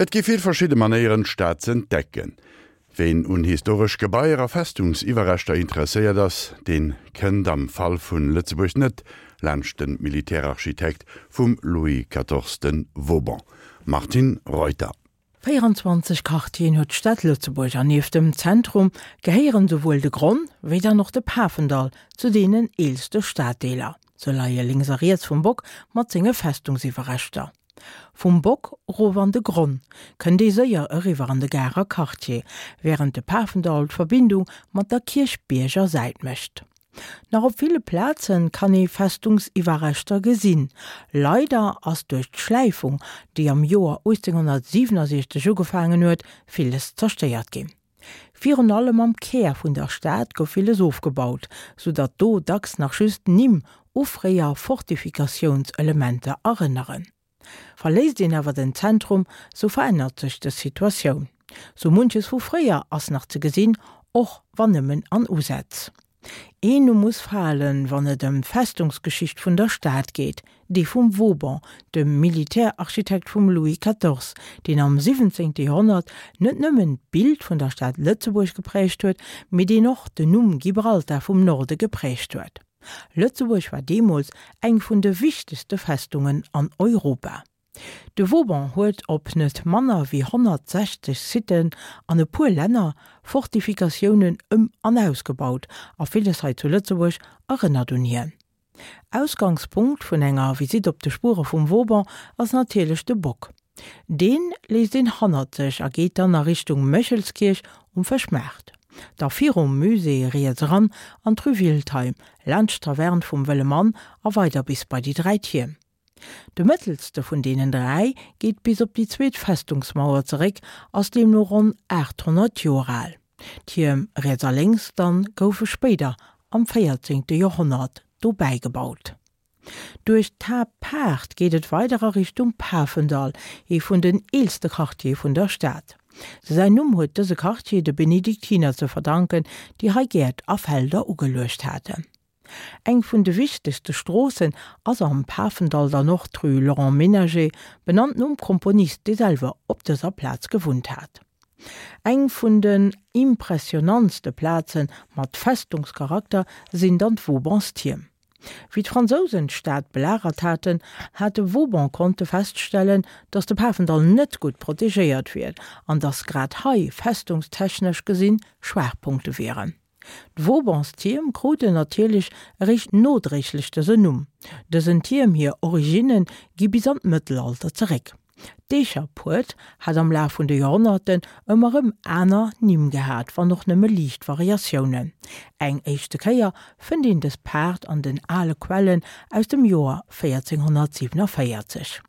Et gi vill verschidde Manéieren, d'Stad z'entdecken. Ween un historesch Gebaier a Festungsiwwerreschter interesséiert ass, deen kënnt am Fall vun Lëtzebuerg net laanscht den Militärarchitekt vum Louis quatorze Vauban. Martine Reuter. 24 Quartieren huet d'Stad Lëtzebuerg an nieft dem Zentrum gehéieren souwuel de Gronn wéi dann och de Pafendall zu deenen eelste Staddeeler. Se leie lénks a riets vum Bock mat senge Festungsiwwerreschter. Vum Bock erof an de Gronn kënnt ee séier eriwwer an de Garer Quartier, wärend de Pafendall d'Verbindung mat der Kierchbierger Säit mécht. Nach op ville Plaze kann ee Festungsiwwerreschter gesinn. Leider ass duerch d'Schläifung, déi am Joer 1867 ugefaangen huet, villes zerstéiert ginn. Virun allem am Kär vun der Stad gouf villes ofgebaut, sou datt do dacks nach just Nimm u fréier Fortifikatiounselementer erënneren. Verléisst een awer den Zentrum, sou verännert sech dës Situatioun. Sou munches vu fréier ass nach ze gesinn, och wann nëmmen an Usätz. Een Numm muss falen, wann et ëm d'Festungsgeschicht vun der Stad geet, dee vum Vauban, dem Militärarchitekt vum Louis quatorze, deen am 17. Joerhonnert net nëmmen d'Bild vun der Stad Lëtzebuerg gepräägt huet, mee deen och den Numm Gibraltar vum Norde gepräägt huet. Lëtzebuerg war deemools eng vun de wichtegste Festungen an Europa. De Vauban huet op net manner wéi 160 Siten an e puer Länner Fortifikatiounen ëm an ausgebaut a villes hei zu Lëtzebuerg erënnert un hien. Ausgangspunkt vun enger Visitt op de Spuere vum Vauban ass natierlech de Bock. Deen léisst een hannert sech a geet dann a Richtung Méchelskierch um Fëschmaart. Da virum Musée riets eran an d'Rue Wiltheim, laanscht d'Taverne vum Wëlle Mann a weider bis bei déi 3 Tierm. De mëttelste vun deenen 3 geet bis op déi zweet Festungsmauer zeréck, ass deemno ronn 800 Joer al. D'Tierm riets a lénks dann goufe spéider am 14. Joerhonnert dobäi gebaut. Duerch d'Haaptpaart geet et weider a Richtung Pafendall, ee vun den eelste Quartiere vun der Stad. Säin Numm huet dëse Quartier de Benediktiner ze verdanken, déi hei Gäert a Felder ugeluecht haten. Eng vun de wichtegste Stroossen ass am Pafendall dann och d'Rue Laurent Menager, benannt nom Komponist, dee selwer op dëser Plaz gewunnt hat. Eng vun den impressionantste Plaze mat Festungscharakter sinn dann d'Vaubanstierm. Wéi d'Fransousen d'Stad belagert haten, hat de Vauban konnte feststellen, datt de Pafendall net gutt protegéiert wier an datt grad hei festungstechnesch gesinn Schwaachpunkte wieren. D'Vaubans-Tierm kruten natierlech eréischt nodréiglech dësen Numm. Dësen Tierm hir Originne gi bis an d'Mëttelalter zeréck. D'Eecherpuert hat am Laf vun de Joerhonnerten ëmmer rëm aner Nimm gehat, wann och nëmme liicht Variatiounen. Eng éischte Kéier fënnt een dës Paart an den ale Quellen aus dem Joer 1447.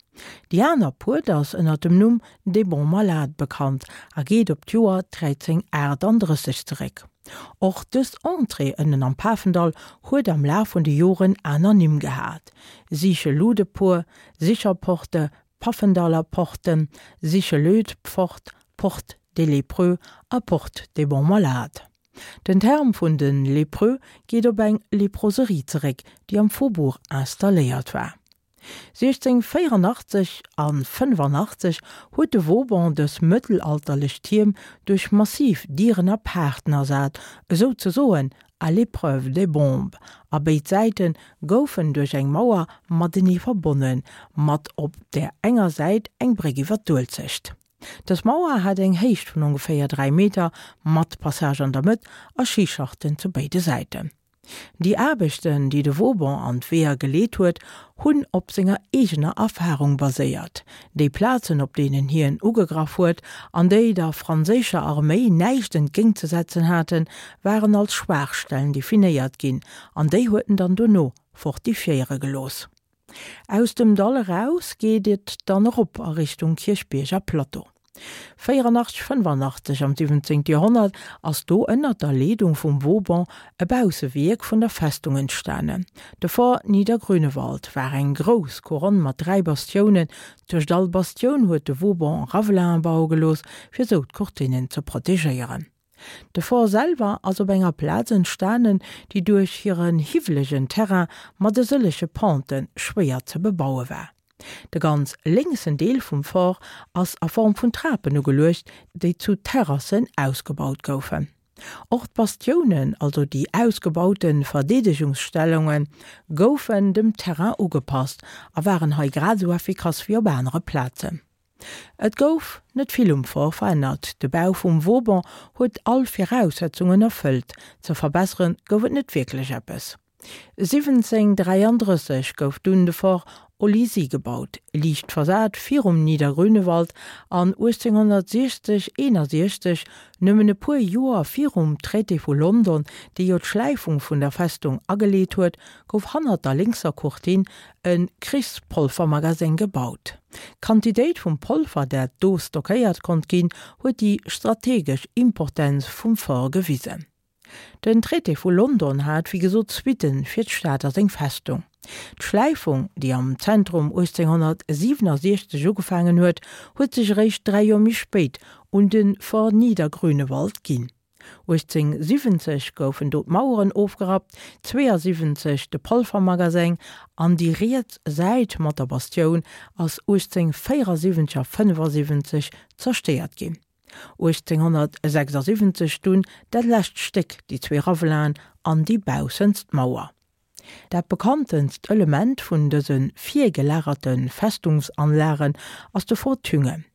Déi aner Puert ass ënner dem Numm des Bons Malades bekannt a geet op d'Joer 1338 zeréck. Och dës Entrée ënnen am Pafendall huet am Laf vun de Joren aner Nimm gehat, Sicheludepuer, Sicherporte, Pafendaller Porte, Sichelödpfort, Porte des Lépreux a Porte des Bons Malades. Den Term vun de Lépreux geet op eng Leproserie zeréck, déi am Faubourg installéiert war. 1684 a 85 huet de Vauban dës mëttelalterlech Tierm duerch massiv Dieren a Paarten ersat, esou ze soen à l'épreuve des bombes, a béid Säite goufen duerch eng Mauer matenee verbonnen, mat op där enger Säit eng Bréck iwwer d'Uelzecht. Dës Mauer hat eng Héicht vun ongeféier 3 Meter, mat Passage an der Mëtt a Schischachten zu béide Säiten. Déi Aarbechten, déi de Vauban an d'Weeër geleet huet, hunn op senger eegener Erfarung baséiert. Déi Plazen, op deenen hien ugegraff huet an déi der franséischer Arméi näischt entgéintzesetzen haten, waren als Schwaachstellen definéiert ginn an déi huet en dann dono fortifiéiere gelooss. Aus dem Dall eraus geet et dann erop a Richtung Kierchbierger Plateau. 84, 85 Am 17. Joerhonnert ass do ënnert der Leedung vum Vauban e Baussewierk vun der Festung entstanen. De Fort Niedergrünewald war eng grouss Couronne mat 3 Bastiounen. Tëscht all Bastioun huet de Vauban Ravelinen baue gelooss, fir sou d'Courtinen ze protegéieren. De Fort selwer ass op enger Plaz entstanen, déi duerch hiren hiwwelegen Terrain mat e sëllege Pente schwéier ze bebaue war. De ganz lénksen Deel vum Fort ass a Form vun Trapen ugeluecht, déi zu Terrassen ausgebaut goufen. Och d'Bastiounen, also déi ausgebaute Verdeedegungsstellungen, goufen dem Terrain ugepasst a waren hei grad esou effikass wéi op anere Plazen. Et gouf net vill um Fort verännert, de Bau vum Vauban huet all Viraussetzungen erfëllt, ze verbessere gouf et net wierklech eppes. 1733 gouf dunn de Fort Olizy gebaut, liicht versat virum Niedergrünewald, an 1860, 61, nëmmen e puer Joer virum Traité vu London, dee jo d'Schläifung vun der Festung ageleet huet, gouf hannert der lénkser Courtine e Krichspolfermagaseng gebaut. D'Quantitéit vum Polver, dat do stockéiert konnt ginn, huet déi strategesch Importenz vum Fort gewisen. Den Traité vu London hat wéi gesot Suitten fir d'Stad a seng Festung. D'Schläifung, déi am Zentrum 1867 ugefaangen huet, huet sech eréischt 3 Joer méi spéit un de Fort Niedergrünewald ginn. 1870 goufen do d'Maueren ofgerappt, 72 de Polvermagaseng an déi riets Säit mat der Bastioun ass 1874 a 75 zerstéiert ginn. 1876 dunn dat lescht Stéck, déi zwee Ravelaen an déi baussenst Mauer. Dat bekanntenst Element vun dëse virgelagerte Festungsanlagen ass de Fort Thüngen.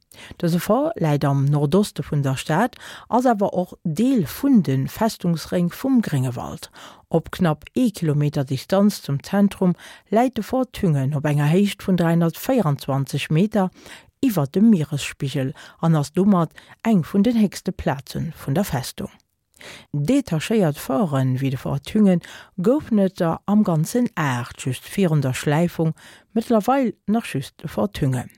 Dëse Fort läit am Nordoste vun der Stad, ass awer och Deel vun de Festungsréng vum Gréngewald. Op knapp ee Kilometer Distanz zum Zentrum läit de Fort Thüngen op enger Héicht vun 324 Meter iwwer dem Mieresspigel an ass domat eng vun den héchste Plaze vun der Festung. Detachéiert Forten, wéi de Fort Thüngen, goufen et der am Ganzen 8, just virun der Schläifung, mëttlerweil nach just de Fort Thüngen.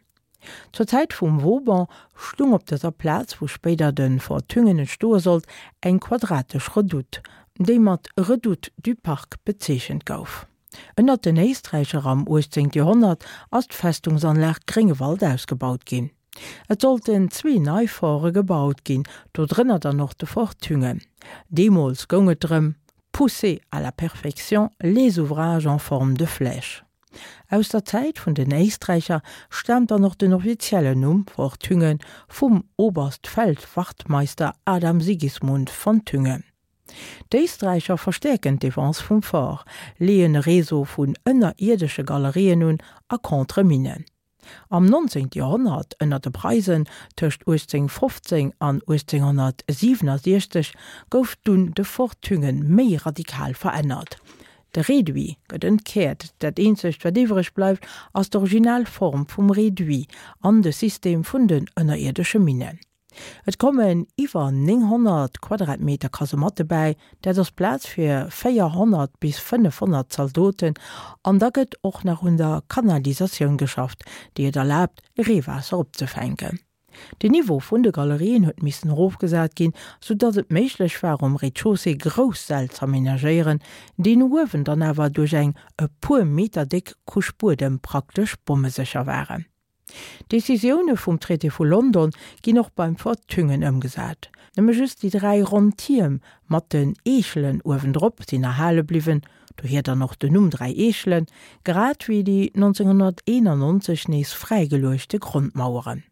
Zur Zäit vum Vauban stung op dëser Plaz, wou spéider de Fort Thüngen entstoe sollt, eng quadratesch Redoute, déi mat Redoute du Parc bezeechent gouf. Ënnert den Éisträicher am 18. Joerhonnert ass d'Festungsanlag Gréngewald ausgebaut ginn. Et sollten zwee nei Forte gebaut ginn, do drënner dann och de Fort Thüngen. Deemools goung et drëm, pousser à la perfection les ouvrages en forme de flèche. Aus der Zäit vun den Éisträicher staamt dann och den offiziellen Numm Fort Thüngen vum Oberstfeldwachtmeister Adam Sigismund von Thüngen. D'Éisträicher verstäerken d'Defense vum Fort, leeën e Réseau vun ënnerierdesche Galerien un a Contre-Minnen. Am 19. Joerhonnert, ënner de Preisen, tëscht 1815 an 1867, gouf dunn de Fort Thüngen méi radikal verännert. De Réduit gëtt entkäert, dat eenzegt wat iwwreg bleift ass d'original Form vum Réduit an de System vun den ënnerierdesche Minnen. Et kommen iwwer 900 Quadratmeter Kasematte bäi, dat ass Plaz fir 400 bis 500 Zaldoten. An da gëtt och nach un der Kanalisatioun geschafft, déi et erlaabt, Reewaasser opzefänken. Den Niveau vun de Galerien huet missen erofgesat ginn, sou datt et méiglech war, um Rez-de-chaussée grouss Säll z'amenagéieren, déi no uewen dann awer duerch eng e puer Meter déck Couche Buedem praktesch bommesécher waren. D'Decisioune vum Traité vu London ginn och beim Fort Thüngen ëmgesat. Nëmme just déi 3 ronn Tierm mat den Eechelen uewendrop sinn erhale bliwwen, dohier dann och den Numm Dräi Eechelen, grad wéi déi 1991 nees fräigeluechte Grondmaueren.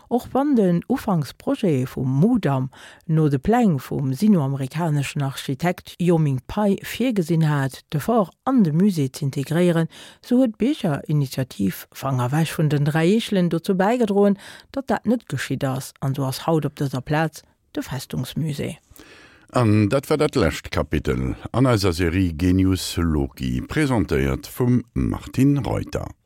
Och wann den Ufanksprojet vum Mudam no de Pläng vum sino-amerikaneschen Architekt Yoh Ming Pei virgesinn hat, de Fort an de Musée z'integréieren, sou huet d'Biergerinitiativ Fanger ewech vun den 3 Eechelen dozou bäigedroen, datt dat net geschitt ass an sou ass haut op dëser Plaz de Festungsmusée. An dat war dat lescht Kapitel an eiser Serie Genius Loci, presentéiert vum Martine Reuter.